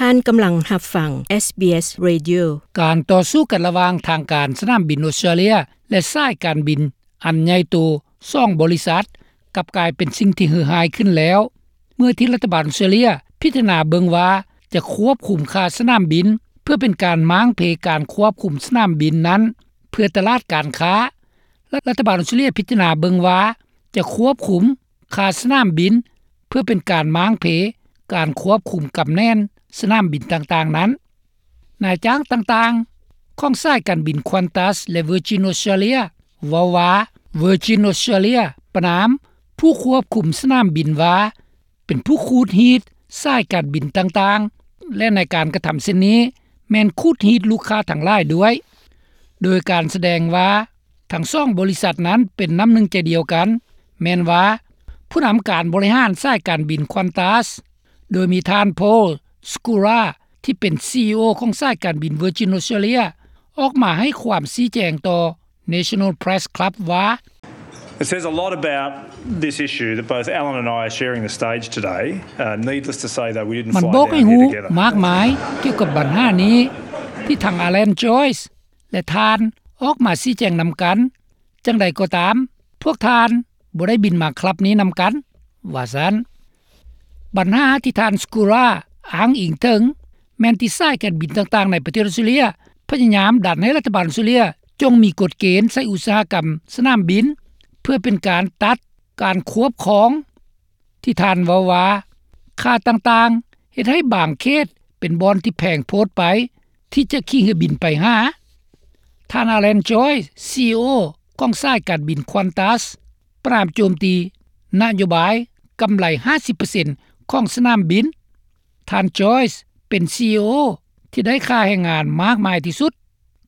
ທ່ານກຳລັງຮັບຟັງ SBS Radio. ການຕໍ່ສູ້ກັນລະຫວ່າງທາງການສະໜາມບິນອົດສະຕຣາເລຍ ແລະ ສາຍການບິນອັນໃຫຍ່ໂຕສອງບໍລິສັດ ກັບກາຍເປັນສິ່ງທີ່ເຫື່ອຮ້າຍຂຶ້ນແລ້ວ ເມື່ອທີ່ລັດຖະບານອົດສະຕຣາເລຍພິຈາລະນາເບິ່ງວ່າຈະຄວບຄຸມຄ່າສະໜາມບິນ ເພື່ອເປັນການມ້າງເພການຄວບຄຸມສະໜາມບິນນັ້ນ ເພື່ອຕະຫຼາດການຄ້າ. ລັດຖະບານອົດສະຕຣາເລຍພິຈາລະນາເບິ່ງວ່າຈະຄວບຄຸມຄ່າສະໜາມບິນ ເພື່ອເປັນການມ້າງເພການຄວບຄຸມກຳແໜ້ນສະໜາມບິນຕ່າງໆນັ້ນ. ນາຍຈ້າງຕ່າງໆຂອງສາຍການບິນ Qantas ແລະ Virgin Australia ເວົ້າວ່າ Virgin Australia ປະນາມຜູ້ຄວບຄຸມສະໜາມບິນວ່າ ເປັນຜູ້ຂູດຮີດສາຍການບິນຕ່າງໆ ແລະ ໃນການກະທຳເຊັ່ນນີ້ ແມ່ນຂູດຮີດລູກຄ້າທັງຫຼາຍດ້ວຍ ໂດຍການສະແດງວ່າທັງສອງບໍລິສັດນັ້ນເປັນນ້ຳໜຶ່ງໃຈດຽວກັນ ແມ່ນວ່າຜູ້ນຳການບໍລິຫານສາຍການບິນ Qantas ໂດຍມີທ່ານ Paul Skura ທີ່ເປັນ CEO ຂອງສາຍການບິນ Virgin Australia ອອກມາໃຫ້ຄວາມຊີ້ແຈງຕໍ່ National Press Club ວ່າ It says a lot about this issue that both Alan and I are sharing the stage today. Uh, needless to say, though, we didn't ມັນ fly ບອກໃຫ້ down ຮູ້ here together. ມາກມາຍກ່ຽວກັບບັນຫານີ້ ທີ່ທັງ Alan Joyce ແລະ ທ່ານອອກມາຊີ້ແຈງນຳກັນ. ຈັ່ງໃດກໍຕາມ, ພວກທ່ານບໍ່ໄດ້ບິນມາຄລັບນີ້ນຳກັນ, ວ່າຊັ້ນ. ບັນຫາທີ່ທ່ານ Skura ອ້າງອີງເຖິງ ແມ່ນທີ່ສາຍການບິນຕ່າງໆໃນປະເທດອອສເຕຣເລຍ ພະຍາຍາມດັນໃຫ້ລັດຖະບານອອສເຕຣເລຍ ຈົ່ງມີກົດເກນໃສ່ອຸດສາຫະກຳສະໜາມບິນ ເພື່ອເປັນການຕັດການຄວບຄອງ ທີ່ທ່ານເວົ້າວ່າ ຄ່າຕ່າງໆເຮັດໃຫ້ບາງເຂດເປັນບ່ອນທີ່ແພງໂພດໄປ ທີ່ຈະຂີ່ເຮືອບິນໄປຫາ. ທ່ານ Alan Joyce, CEO ຂອງສາຍການບິນ Qantas ປະນາມໂຈມຕີນະໂຍບາຍກຳໄລຫ້າສິບເປີເຊັນຂອງສະໜາມບິນ. ທ່ານ Joyce ເປັນ CEO ທີ່ໄດ້ຄ່າແຮງງານມາກມາຍທີ່ສຸດ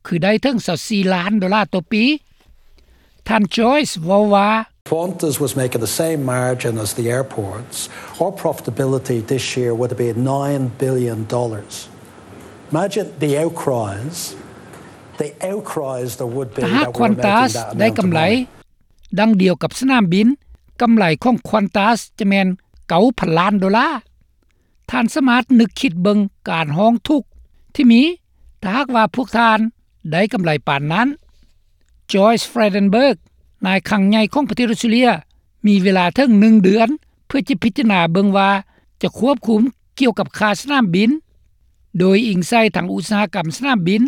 ຄືໄດ້ເຖິງຊາວສີ່ລ້ານໂດລາຕໍ່ປີ. ທ່ານ Joyce ເວົ້າວ່າ Qantas was making the same margin as the airports. Our profitability this year would have been nine billion dollars. Imagine the outcries, the outcries there would be ຖ້າຫາກ that we're making Qantas that ໄດ້ amount ກຳ of ໄລ money. ດັ່ງດຽວກັບສະໜາມບິນ, ກຳໄລຂອງ Qantas ຈະແມ່ນເກົ້າພັນລ້ານໂດລາ. ທ່ານສາມາດນຶກຄິດເບິ່ງການຮ້ອງທຸກທີ່ມີ ຖ້າຫາກວ່າພວກທ່ານໄດ້ກຳໄລປານນັ້ນ. Joyce Frydenberg, ນາຍຄັງໃຫຍ່ຂອງປະເທດອອສເຕຣເລຍ ມີເວລາເຖິງໜຶ່ງເດືອນ ເພື່ອຈະພິຈາລະນາເບິ່ງວ່າຈະຄວບຄຸມກ່ຽວກັບຄ່າສະໜາມບິນ ໂດຍອີງໃສ່ທັງອຸດສາຫະກຳສະໜາມບິນ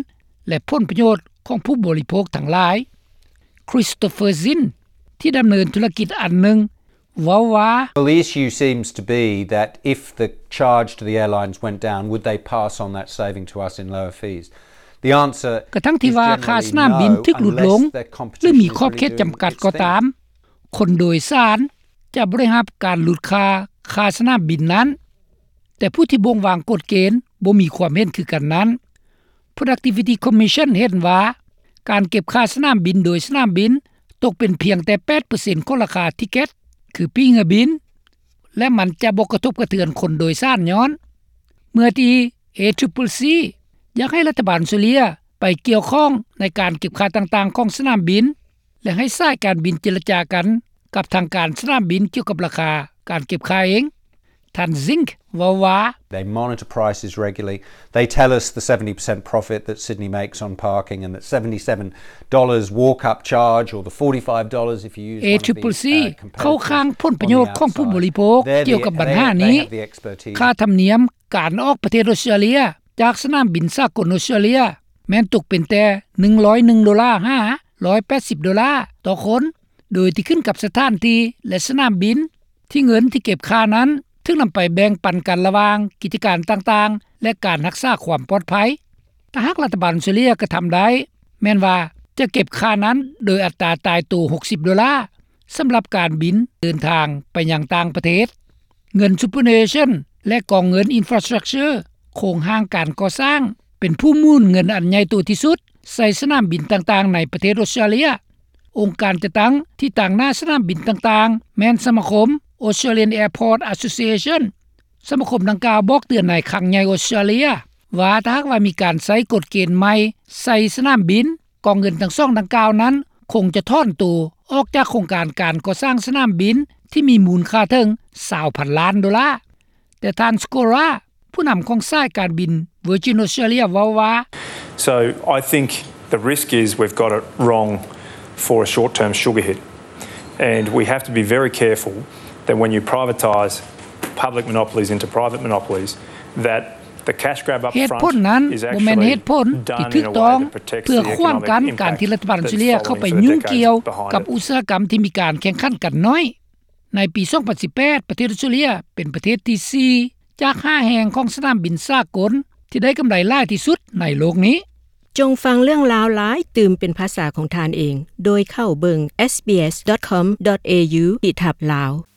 ແລະ ຜົນປະໂຫຍດຂອງຜູ້ບໍລິໂພກທັງຫຼາຍ. Christopher Zinn, ທີ່ດຳເນີນທຸລະກິດອັນໜຶ່ງ ເວົ້າວ່າ Well, the issue seems to be that if the charge to the airlines went down, would they pass on that saving to us in lower fees? The answer is generally no, unless their competition really do its thing. ກະທັງທີ່ວ່າຄ່າສະໜາມບິນຖືກຫຼຸດລົງ ຫຼື ມີຂອບເຂດຈຳກັດກໍຕາມ, ຄົນໂດຍສານຈະບໍ່ໄດ້ຮັບການຫຼຸດຄ່າ ຄ່າສະໜາມບິນນັ້ນ, ແຕ່ຜູ້ທີ່ບົ່ງວາງກົດເກນບໍ່ມີຄວາມເຫັນຄືກັນນັ້ນ. Productivity Commission ເຫັນວ່າ ການເກັບຄ່າສະໜາມບິນໂດຍສະໜາມບິນຕົກເປັນພຽງແຕ່ແປດເປີເຊັນຂອງລາຄາທິເກັດ ຄືປີ້ເຮືອບິນ ແລະ ມັນຈະບໍ່ກະທົບກະເທືອນຄົນໂດຍສານຍ້ອນ ເມື່ອທີ່ ACCC ຢາກໃຫ້ລັດຖະບານອອສເຕຣເລຍໄປກ່ຽວຂ້ອງໃນການເກັບຄ່າຕ່າງໆຂອງສະໜາມບິນ ແລະ ໃຫ້ສາຍການບິນເຈລະຈາກັນກັບທາງການສະໜາມບິນກ່ຽວກັບລາຄາການເກັບຄ່າເອງ. ທ່ານ Zink ເວົ້າວ່າ They monitor prices regularly. They tell us the seventy percent profit that Sydney makes on parking and that seventy-seven dollars walk-up charge or the forty-five dollars if you use one of these, uh, competitors on the outside. ເຂົາຄ້າງຜົນປະໂຫຍດຂອງຜູ້ບໍລິໂພກກ່ຽວກັບບັນຫານີ້. ຄ່າທຳນຽມການອອກປະເທດອອສເຕຣເລຍຈາກສະໜາມບິນສາກົນອອສເຕຣເລຍ ແມ່ນຕົກເປັນແຕ່ໜຶ່ງຮ້ອຍໜຶ່ງໂດລາ ຫາ ຮ້ອຍແປດສິບໂດລາຕໍ່ຄົນ ໂດຍທີ່ຂຶ້ນກັບສະຖານທີ່ ແລະ ສະໜາມບິນ ທີ່ເງິນທີ່ເກັບຄ່ານັ້ນຖືກນຳໄປແບ່ງປັນກັນລະຫວ່າງກິດຈະການຕ່າງໆ ແລະ ການຮັກສາຄວາມປອດໄພ. ຖ້າຫາກລັດຖະບານອອສເຕຣເລຍກະທຳໄດ້ ແມ່ນວ່າຈະເກັບຄ່ານັ້ນໂດຍອັດຕາຕາຍໂຕຫົກສິບໂດລາ ສຳລັບການບິນເດີນທາງໄປຍັງຕ່າງປະເທດ. ເງິນ Superannuation ແລະ ກອງເງິນ Infrastructure ໂຄງຮ່າງການກໍ່ສ້າງ ເປັນຜູ້ໝູນເງິນອັນໃຫຍ່ໂຕທີ່ສຸດໃສ່ສະໜາມບິນຕ່າງໆໃນປະເທດອອສເຕຣເລຍ. ອົງການຈັດຕັ້ງທີ່ຕາງໜ້າສະໜາມບິນຕ່າງໆ ແມ່ນສະມາຄົມ Australian Airport Association. ສະມາຄົມດັ່ງກ່າວບອກເຕືອນນາຍຄັງໃຫຍ່ອອສເຕຣເລຍວ່າ ຖ້າຫາກວ່າມີການໃຊ້ກົດເກນໃໝ່ໃສ່ສະໜາມບິນ, ກອງເງິນທັງສອງດັ່ງກ່າວນັ້ນຄົງຈະຖອນໂຕອອກຈາກໂຄງການການກໍ່ສ້າງສະໜາມບິນທີ່ມີມູນຄ່າເຖິງຊາວພັນລ້ານໂດລາ. ແຕ່ທ່ານ Skora ຜູ້ນຳຂອງສາຍການບິນ Virgin Australia ເວົ້າວ່າ So I think the risk is we've got it wrong for a short term sugar hit and we have to be very careful that when you privatise public monopolies into private monopolies that the cash grab up front ເຫດຜົນນັ້ນບໍ່ແມ່ນເຫດຜົນທີ່ຖືກຕ້ອງເພື່ອຂວາງກັ້ນການທີ່ລັດຖະບານອອສເຕຣເລັຽເຂົ້າໄປຫຍຸ້ງກ່ຽວກັບອຸດສາຫະກຳທີ່ມີການແຂ່ງຂັນກັນໜ້ອຍ. ໃນປີ 2018 ປະເທດອອສເຕຣເລັຽເປັນປະເທດທີ 4 ຈາກ 5 ແຫ່ງຂອງສະໜາມບິນສາກົນທີ່ໄດ້ກຳໄລຫຼາຍທີ່ສຸດໃນໂລກນີ້. ຈົ່ງຟັງເລື່ອງລາວຫຼາຍຕື່ມເປັນພາສາຂອງທ່ານເອງ ໂດຍເຂົ້າເບິ່ງ sbs.com.au/lao